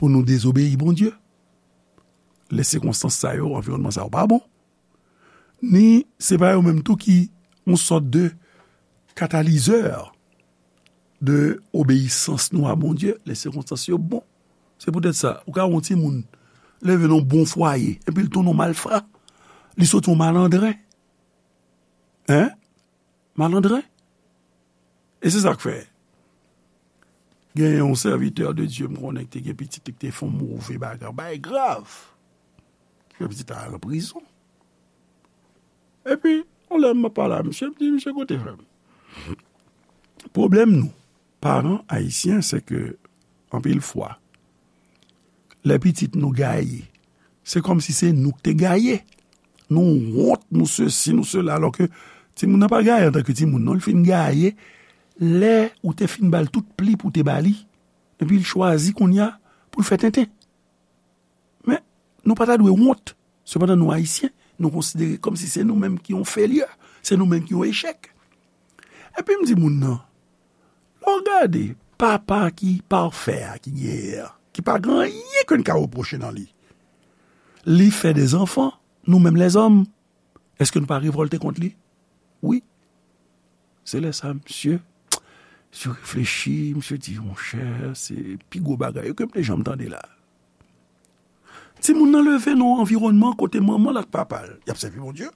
pou nou dezobeyi Bondye. Lè sikonstans sa yo, anviwònman sa yo pa bon. Ni se pa yo menm tou ki yon sòt de katalizè de obeyisans nou a Bondye, lè sikonstans yo bon. Se poutèt sa, ou ka wè yon timoun leve nan yon bon fwaye, epi l tounen yon malfra, li sot yon malandren. Hein? Malandren. E se sa k fè, gen yon sèvitè de Dye m konnen ki te gen pitit li ki te fè yon move bagay, yon bagay grav. Ki fè pitit la al an prizon. Epi, yon lè m ap pale a misye, m di, "Misye, kote frè m?" Pwoblèm nou, paran ayisyen, se ke, anpil fwa, lè pitit nou gaye, se kòmsi se nou k te gaye. Nou wont, nou sesi, nou sela, alòske timoun nan pa gaye antanke timoun, non, li fin gaye lè ou te fin ba l tout pli pou w te ba li. Epi l chwazi kounye a pou l fè tenten. Men, nou pa ta dwe wont. Sepandan, nou Ayisyen, nou konsidere kòmsi se nou menm ki yon felyè, se nou menm ki yon echèk. Epi m di moun nan, lè w gade papa ki pafè a ki genyen an, ki pa gen anyen ke n ka repwoche nan li, li fè de zanfan, nou menm lèzòm, èske nou pa revòlte kont li? Wi. Se lè sa, misye, misye reflechi, misye di, monchè, se pi gwo bagay yo ke m te janm tande la. Timoun nan leve nan yon anviwònman kote manman l ak papa l, y ap sèvi Bondye.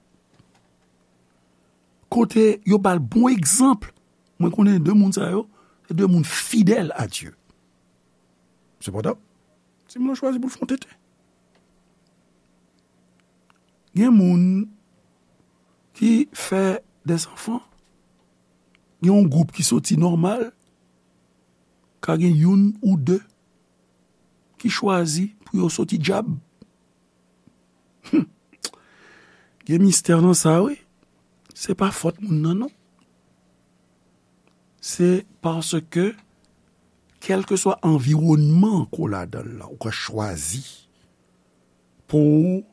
Kote yo ba l bon egzanp. Mwen konnen de moun sa yo, se de moun fidèl a Dye. Sepandan, timoun nan chwazi pou l fè yon tenten. Gen moun ki fè de zanfan. Gen yon gwoup ki soti nòmal, ka gen youn ou de ki chwazi pou yo soti dyab. Hum. Gen mistè nan sa, wi. Se pa fòt moun nan, non. Se paske, kèlkeswa anviwònman ke w ladan l lan, ou ka chwazi pou w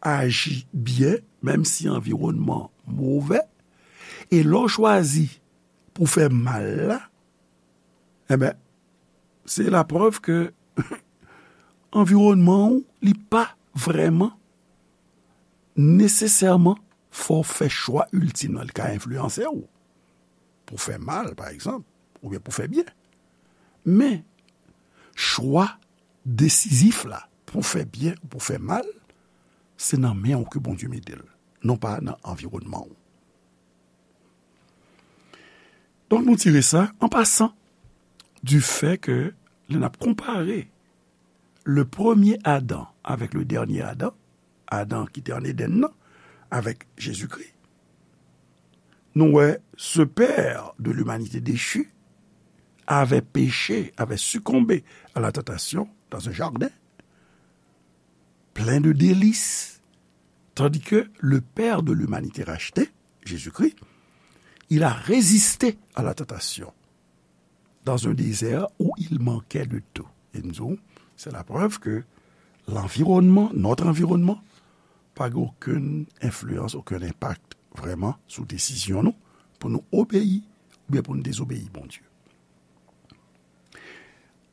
aji byen, menm si anviwònman move, e lè w chwazi pou fè mal la, enben, se laprèv ke anviwònman w, li pa vrèman nesesèman fò w fè chwa iltim nan. Li ka enfliyanse w pou fè mal, pa egzanp, oubyen pou fè byen. Men, chwa desizif la, pou fè byen ou pou fè mal, se nan men w ke Bondye mete l, non pa nan anviwònman w. Donk, nou tire sa, an pasan, du fait que lè n ap konpare le premier Adam avec le dernier Adam, Adan ki te ann Edenn nan, avèk Jezikri, nou wè ce père de l'humanité déchue avait péché, avait succombé à la tentation dans un jardin plein de délices, tandis que le père de l'humanité rachetée, Jésus-Christ, il a résisté à la tentation dans un désert où il manquait de tout. E m di w, se laprèv ke lanviwònman, notre environnement, pa gen okenn enfliyans, okenn enpak vrèman sou desizyon nou pou nou obeyi oubyen pou nou dezobeyi Bondye.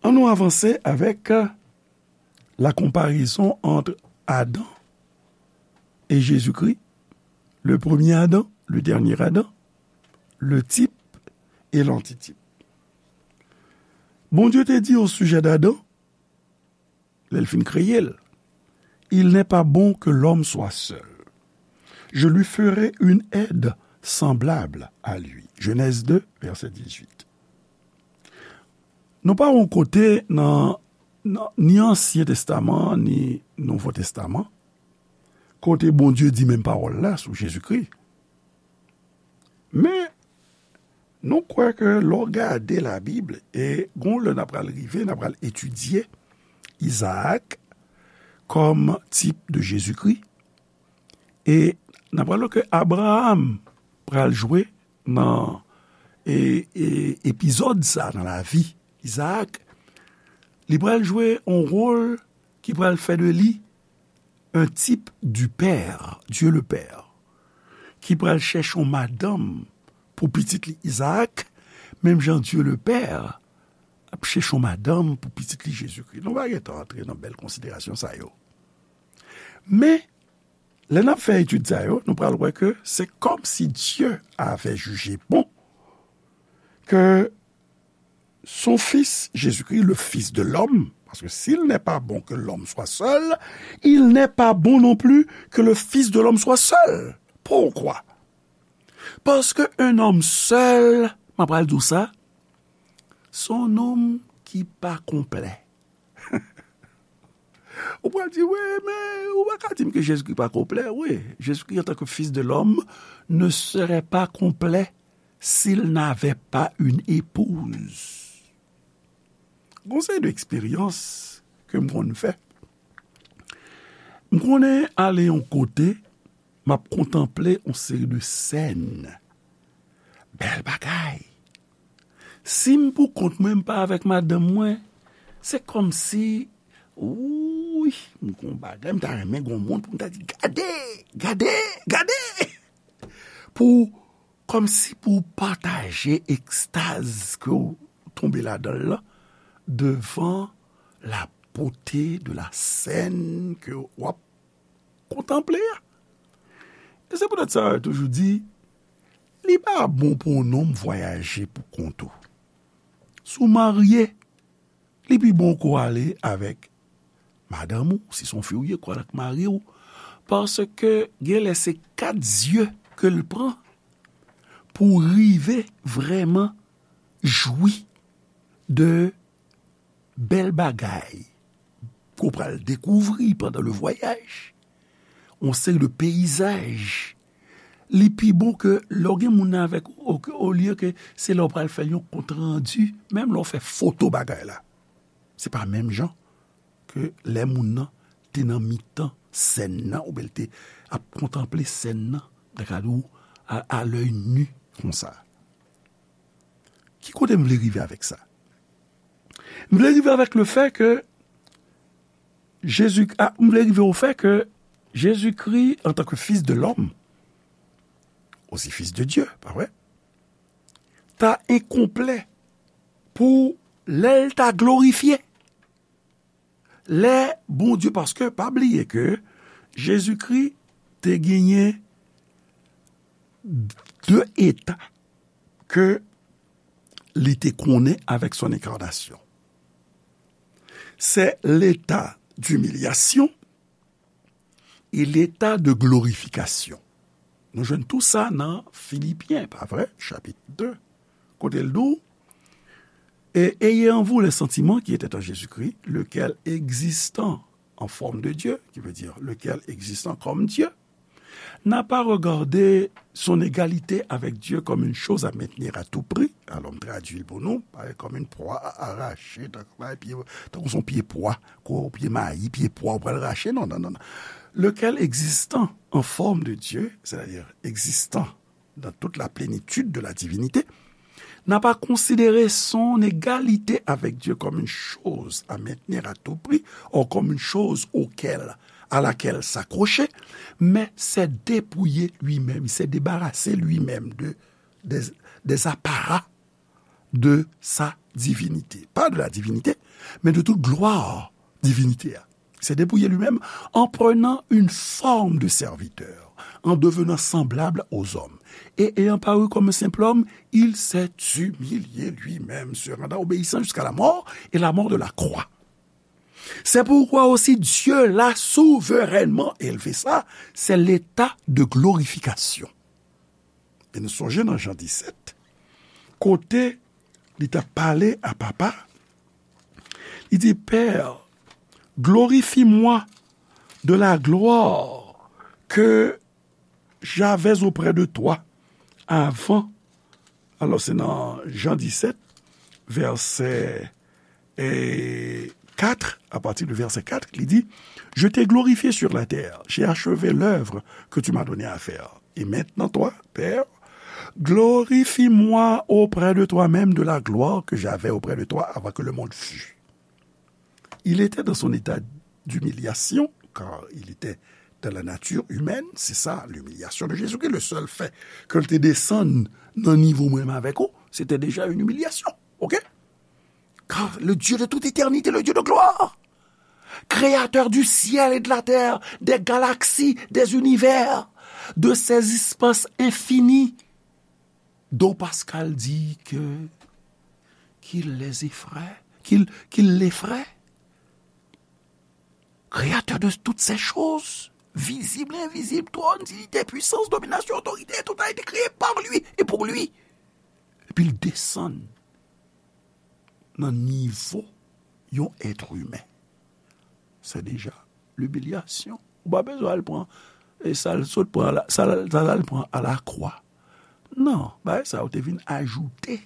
Ann nou avanse avèk la comparaison entre Adam et Jésus-Christ, le premier Adam, le dernier Adam, le type et l'antitype. Bondye te di au sujet d'Adam, lè l fin kreye l, il n'est pas bon que l'homme soit seul. Je lui ferai une aide semblable à lui. Genèse deux, verset dix-huit. Nou pa yon kote nan, nan ni Ansyen Testaman, ni Nouvo Testaman, kote Bondye di menm pawòl la sou Jezikri. Men, nou kwè ke lè w gade Labib, e gon lè n ap pral rive, n ap pral etidye Izaak kòm tip de Jezikri, e n ap pral wè ke Abraram pral jwe nan, e, e, epizòd sa nan lavi Izaak, li pral jwe yon wòl ki pral fè de li un type du Père, Dieu le Père, ki pral chèche yon madanm pou pitit li Izaak, menm jan Dieu le Père ap chèche yon madanm pou pitit li Jezikri. Nou pa gentan antre nan bèl konsiderasyon sa yo. Men, lè n ap fè etid sa yo, nou pral wè ke se kòmsi Dieu avait jugé bon que son Fils Jésus-Christ, le Fils de l'homme, parce que s'il n'est pas bon que l'homme soit seul, il n'est pas bon non plus que le Fils de l'homme soit seul. Pourquoi? Parce que un homme seul, m ap pral di w sa, se yon nonm ki pa konplè. Ou pral di, wi, men ou pa ka di m ke Jezikri pa konplè. Wi, Jezikri, en tant que Fils de l'homme, ne serait pas complet s'il n'avait pas une épouse. Gon seri de eksperyans ke m konn fè. M konnen ale yon kote, m ap kontanple yon seri de sèn. Bèl bagay. Si m pou kont mwen, m pa avèk madanm mwen, se kòmsi, wi, m gon bagay, m ta renmen gon moun pou m ta di, gade, gade, gade. Pou kòmsi pou w pataje ekstaz ke w tonbe ladan l lan devan la beauté de la scène ke w ap kontanple a. E se poutèt sa yo toujou di, li pa bon pou yon nonm vwayaje pou kont ou. Si w marye, li pi bon ke w ale avèk madanm ou, si se yon fi w ye, ke w ale ak mari w, paske genlè se kat zye ke l pran pou w rive vrèman jwi de bèl bagay ke w pral dekouvri pandan le voyage, yon seri de peyizaj. Li pi bon ke lè w gen moun nan avèk ou, olye ke se lè w pral fè yon kontrandi, menm lè w fè foto bagay la. Se pa menm jan ke lè moun nan te nan mitan sèn nan, oubyen l te ap kontanple sèn nan, dakadou, a, à l'œil nu, konsa. Ki kote m vle rive avèk sa? M vle rive avèk le fè ke Jezi, a, m vle rive o fè ke Jezikri, antanke Fils de l'homme, aussi Fils de Dieu, pa vre? Ta enkonplè pou lè l ta glorifye. Lè Bondye, paske pa bliye ke Jezikri te genyen de eta ke li te konnen avèk son enkarnasyon. C'est l'état d'humiliation et l'état de glorification. Nou jwenn tou sa nan Filipyen, pa vre? Chapit de, kote l di w, et ayez en vous les sentiments qui étaient en Jésus-Christ, lequel, existant en forme de Dieu, qui veut dire lequel, existant comme Dieu, n'a pas regardé son égalité avec Dieu comme une chose à maintenir à tout prix. Alò, m tradui l pou nou, pa kòm yon pwa a arache, tankou yon pye, tankou se yon pye pwa, kou pye mayi, pye pwa, ou pral rache, non, non, non, non. Lequel, existant en forme de Dieu, c'est-à-dire existant dans toute la plénitude de la divinité, n'a pas considéré son égalité avec Dieu comme une chose à maintenir à tout prix, ou comme une chose auquel, à laquelle s'accrocher, mais s'est dépouillé lui-même, il s'est débarrassé lui-même de, des, des apparats de sa divinité. Pas de la divinité, mais de toute gloire divinité. Il s'est dépouillé lui-même en prenant une forme de serviteur, en devenant semblable aux hommes. Et ayant paru comme un simple homme, il s'est humilié lui-même, se rendant obéissant jusqu'à la mort, et la mort de la croix. C'est pourquoi aussi Dieu l'a souverainement élevé. Ça, c'est l'état de glorification. E nou sonje nan Jan disèt, kote li t ap pale a Papa, li di, Père, glorifie-moi de la gloire que j'avais auprès de toi avant. Alò, se nan Jan disèt, vèsè et quatre, à partir du verset quatre, il dit, Je t'ai glorifié sur la terre, j'ai achevé l'œuvre que tu m'as donné à faire. Et maintenant, toi, Père, glorifie-moi auprès de toi-même de la gloire que j'avais auprès de toi avant que le monde fût. Il était dans son état d'humiliation, car il était dans la nature humaine, c'est ça, l'humiliation de Jésus-Christ. Le seul fait ke l te desann nan nivo mwen menm avèk ou, c'était déjà une humiliation, ok? Car le Dieu de toute éternité, le Dieu de gloire, créateur du ciel et de la terre, des galaxies, des univers, de ces espaces infinis, Don Pascal dit que, qu'il les effraie, qu'il, qu'il l'effraie. Créateur de toutes ces choses, visible et invisible, trône, dignité, puissance, domination, autorité, tout a été créé par lui et pour lui. Epi l desann nan nivo yon èt imen. Se deja limilyasyon. Ou pa bezwen al pran, e sa l sot pran, sa l al pran alakwa. Non, bagay sa yo te vin ajoute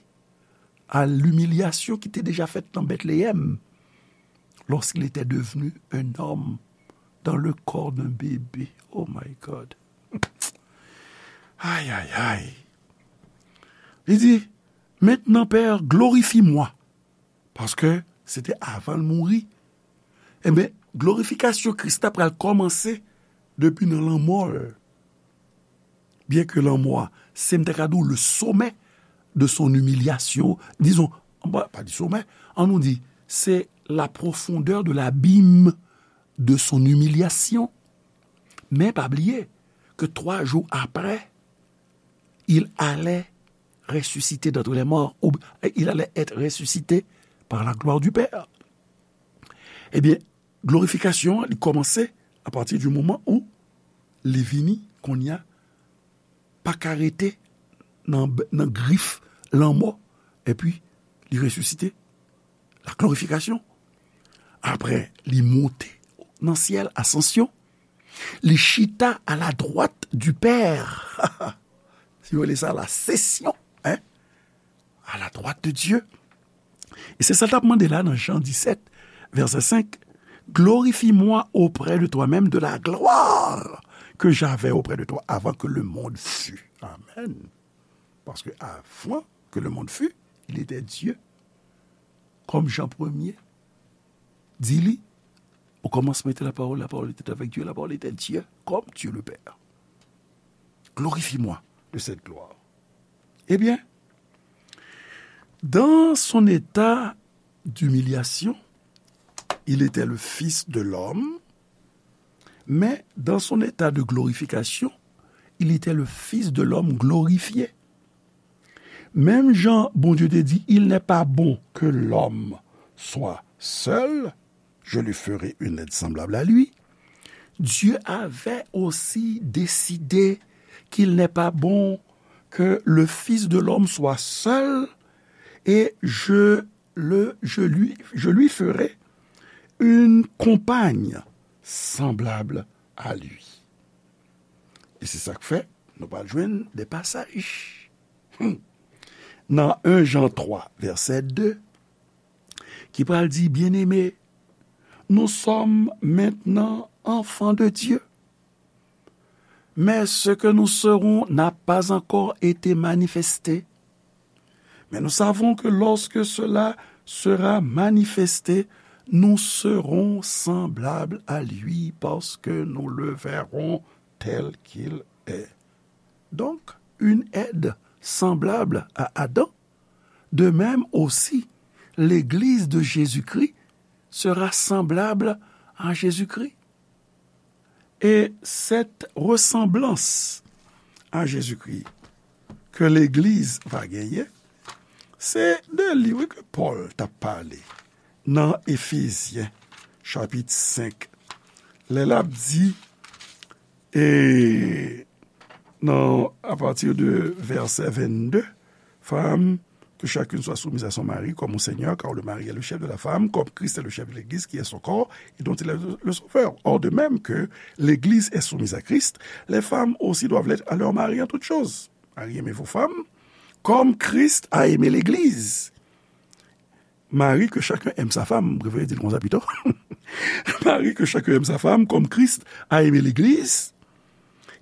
à l'humiliation qui était déjà faite dans Bethléem, lorsqu'il était devenu un homme dans le corps d'un bébé. Oh my God. Ay, ay, ay. Li di, Maintenant, Père, glorifie-moi. Paske se te avan l mouri. Enben, glorifikasyon Kris la pral kòmanse depi nan lanmò l. Byenke lanmò a Se, m ta ka di w, le sommet de son humiliation. Disons, pa, pa di sommet, ann nou di, c'est la profondeur de l'abîme de son humiliation. Men pa bliye ke twa jou apre, il allait ressusciter d'entre les morts, ou il allait être ressuscité par la gloire du Père. Ebyen, glorifikasyon an, li kòmanse apati di moman ou li vini, kounye a, pa ka rete nan, nan grif lanmò, epi li resisite, la glorifikasyon. Apre, li monte nan syèl, asansyon. Li chita à la droite du Père. Si w rele sa la sesyon, hein? À la droite de Dieu. E se sa l t ap mande la nan Jan disèt, vèsè senk, Glorifie-moi auprès de toi-même de la gloire que j'avais auprès de toi avant que le monde fût. Amen. Paske avan ke le monde fût, il était Dieu. Comme Jean premier dit li, au commencement était la parole, la parole était avec Dieu, la parole était Dieu, comme Dieu le Père. Glorifie-moi de cette gloire. Eh bien, dans son état d'humiliation, il était le Fils de l'homme, mais dans son état de glorification, il était le Fils de l'homme glorifié. Menm jan Bondye te di, il n'est pas bon que l'homme soit seul, je lui ferai une aide semblable à lui. Dieu avait aussi décidé qu'il n'est pas bon que le Fils de l'homme soit seul, et je le, je lui, je lui ferai une compagne semblable à lui. E se sa k fè, nou pral jwenn de pasaj. Hmm. Nan en Jan twa, vèsè de, ki pral di, Bien-aimés, nous sommes maintenant enfants de Dieu. Mais ce que nous serons n'a pas encore été manifesté. Mais nous savons que lorsque cela sera manifesté, nous serons semblables à lui parce que nous le verrons tel qu'il est. Donc, une aide semblable à Adam. De même aussi, l'Église de Jésus-Christ sera semblable à Jésus-Christ. Et cette ressemblance à Jésus-Christ que l'Église va gagner, se de li, wi, ke Pòl t ap pale nan Efezyen, chapit senk, lè l ap di, e nan, à partir de verset vingt-deux, Femmes, que chacune soit soumise à son mari comme au Seigneur, car le mari est le chef de la femme, comme Christ est le chef de l'Église, qui est son corps, et dont il est le sauveur. Or, de même que l'Église est soumise à Christ, les femmes aussi doivent l'être à leur mari en toutes choses. Mari, aimez vos femmes, comme Christ a aimé l'Église. Mari, que chacun aime sa femme, m prefere di l konsa pito. Mari, que chacun aime sa femme, comme Christ a aimé l'Église,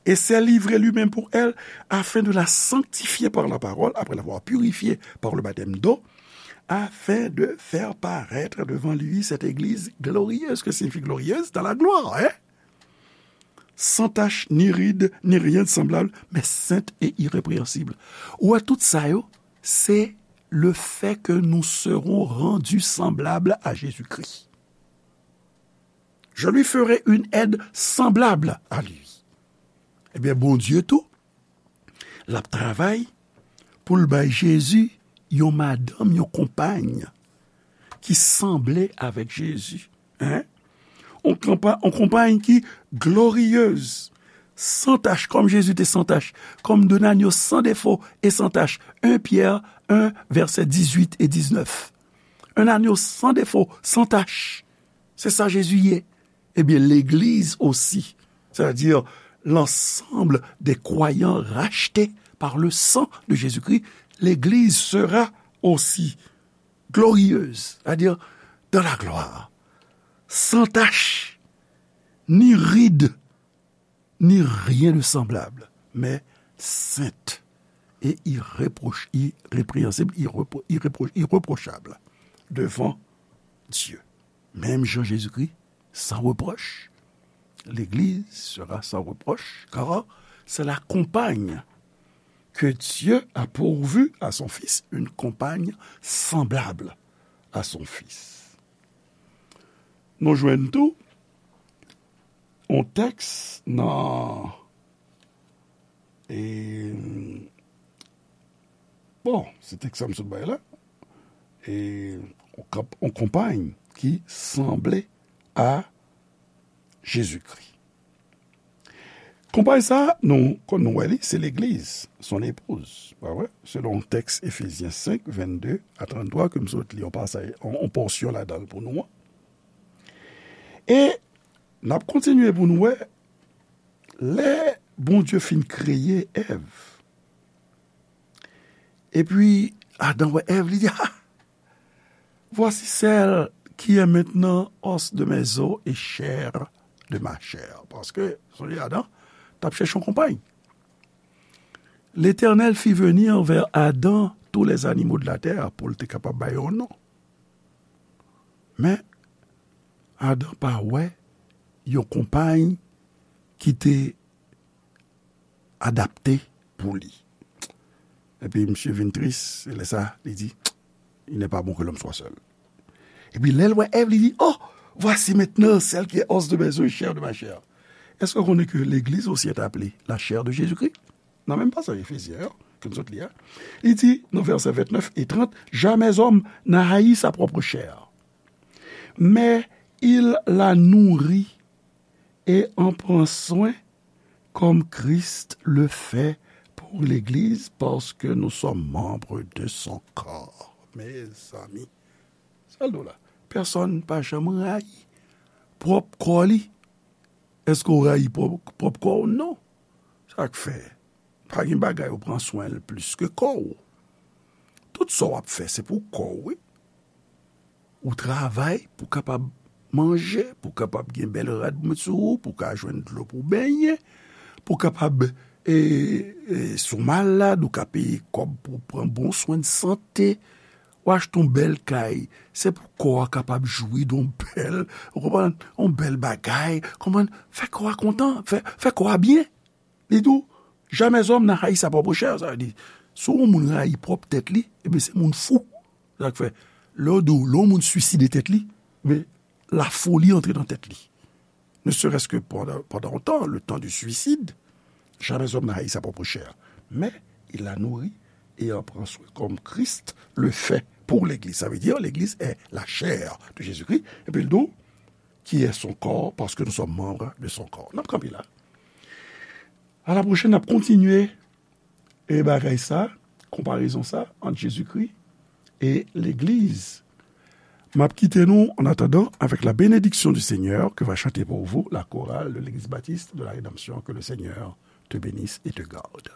et s'est livré lui-même pour elle, afin de la sanctifier par la parole, après l'avoir purifiée par le baptême d'eau, afin de faire paraître devant lui cette église glorieuse. Que signifie glorieuse? Dans la gloire, hein? Sans tache, ni ride, ni rien de semblable, mais sainte et irrépréhensible. Ou wè, tout sa yo, se le fait que nous serons rendus semblables à Jésus-Christ. Je lui ferai une aide semblable à lui. Ebyen, Bondye tou, l ap travay pou l bay Jezi yon madanm, yon konpay ki sanble avèk Jezi. Hein? On konpa-, on konpay ki glorieuse, sans tache, comme Jésus était sans tache, comme d'un agneau sans défaut et sans tache. En Pierre un, verset dix-huit et dix-neuf. Un agneau sans défaut, sans tache. Se sa Jezi ye. Ebyen, legliz osi, c'est-à-dire l'ensemble des croyants rachetés par le sang de Jésus-Christ, l'église sera aussi glorieuse, c'est-à-dire dans la gloire, sans tache, ni ride, ni rien de semblable, mais sainte et irréproch-, irrépréhensible, irrépro-, irrépro-, irréprochable devant Dieu. Menm jan Jezikri san repwòch, legliz sera sans reproche, car c'est la compagne Que Dieu a pourvu à son Fils une compagne semblable à son Fils. Nou jwenn tou yon tèks nan, e, bon, se tèks sa m sot bay la, e, yon konp-, yon konpay ki sanble a Jezikri. Konpay sa, nou, kon nou wè li, se legliz, son épouse, pa vre? Selon tèks Efezyen senk, vennde a tranntwa, ke m sot li yon pasaj, yon, yon pòsyon ladan l pou nou an. E n ap kontinye pou nou wè, lè Bondye fin kreye Èv, epi Adan wè Èv, li di, ah, voici celle qui est maintenant os de mes os et chair de ma chair. Paske, sonje Adan t ap chèche yon konpay. L'Éternel fit venir vers Adam tous les animaux de la terre pou l te kapab bay yon non. Men, Adan pa wè yon konpay ki te adapte pou li. Epi misye vin tris, e lè sa, li di, il n'est pas bon que l'homme soit seul. Epi lè l wè Èv, li di, oh, voici maintenant celle qui est os de mes os et chair de ma chair. Èske w konnen ke legliz osi est appelée la chair de Jésus-Christ? Nan menm pasaj Efezyen an, ke nou sot li a, li di, nan vèsè vennèf e trant, jamais homme n'a haï sa propre chair, mais il la nourrit et en prend soin comme Christ le fait pour l'Église, parce que nous sommes membres de son corps. Mezanmi, sa l do la. Pèsonn pa janm rayi pwòp kò li. Èske w rayi pwòp, pwòp kò w? Non. Sa k fè? Pa gen bagay ou pran swen l plis ke kò w. Tout sa w ap fè, se pou kò w, wi. Ou travay pou kapab manje, pou kapab gen bèl rad pou met sou ou, pou ka jwenn dlo pou benyen, pou kapab, e, e, si w malad, ou ka peye kòb pou pran bon swen de sante, ou achte yon bèl kay, se pou kò a kapab jwi de yon bèl, ou konprann, yon bèl bagay, konprann, fè kò a kontan, fè, fè kò a byen. Li di w, jamais homme n'a haï sa propre chair, sa vle di, si yon moun rayi pwòp tèt li, ebyen se moun fou. Sa k fè, lè yo di w, lè yon moun swiside tèt li, men lafoli antre nan tèt li. Ne serait-ce que pendant, pendant un temps, le temps du suicide, jamais homme n'a haï sa propre chair, mais il la nourrit et en prend soin comme Christ le fait pour l'Église. Ça veut dire, l'Église est la chair de Jésus-Christ. Epi l di w, qui est son corps, parce que nous sommes membres de son corps. N ap kanpe la. A la pwochèn, n ap kontinye e bagay sa, konparezon sa ant Jezikri e legliz. M ap kite nou, en attendant, avec la bénédiction du Seigneur que va chanter pour vous la chorale de l'église baptiste de la Rédemption. Que le Seigneur te bénisse et te garde.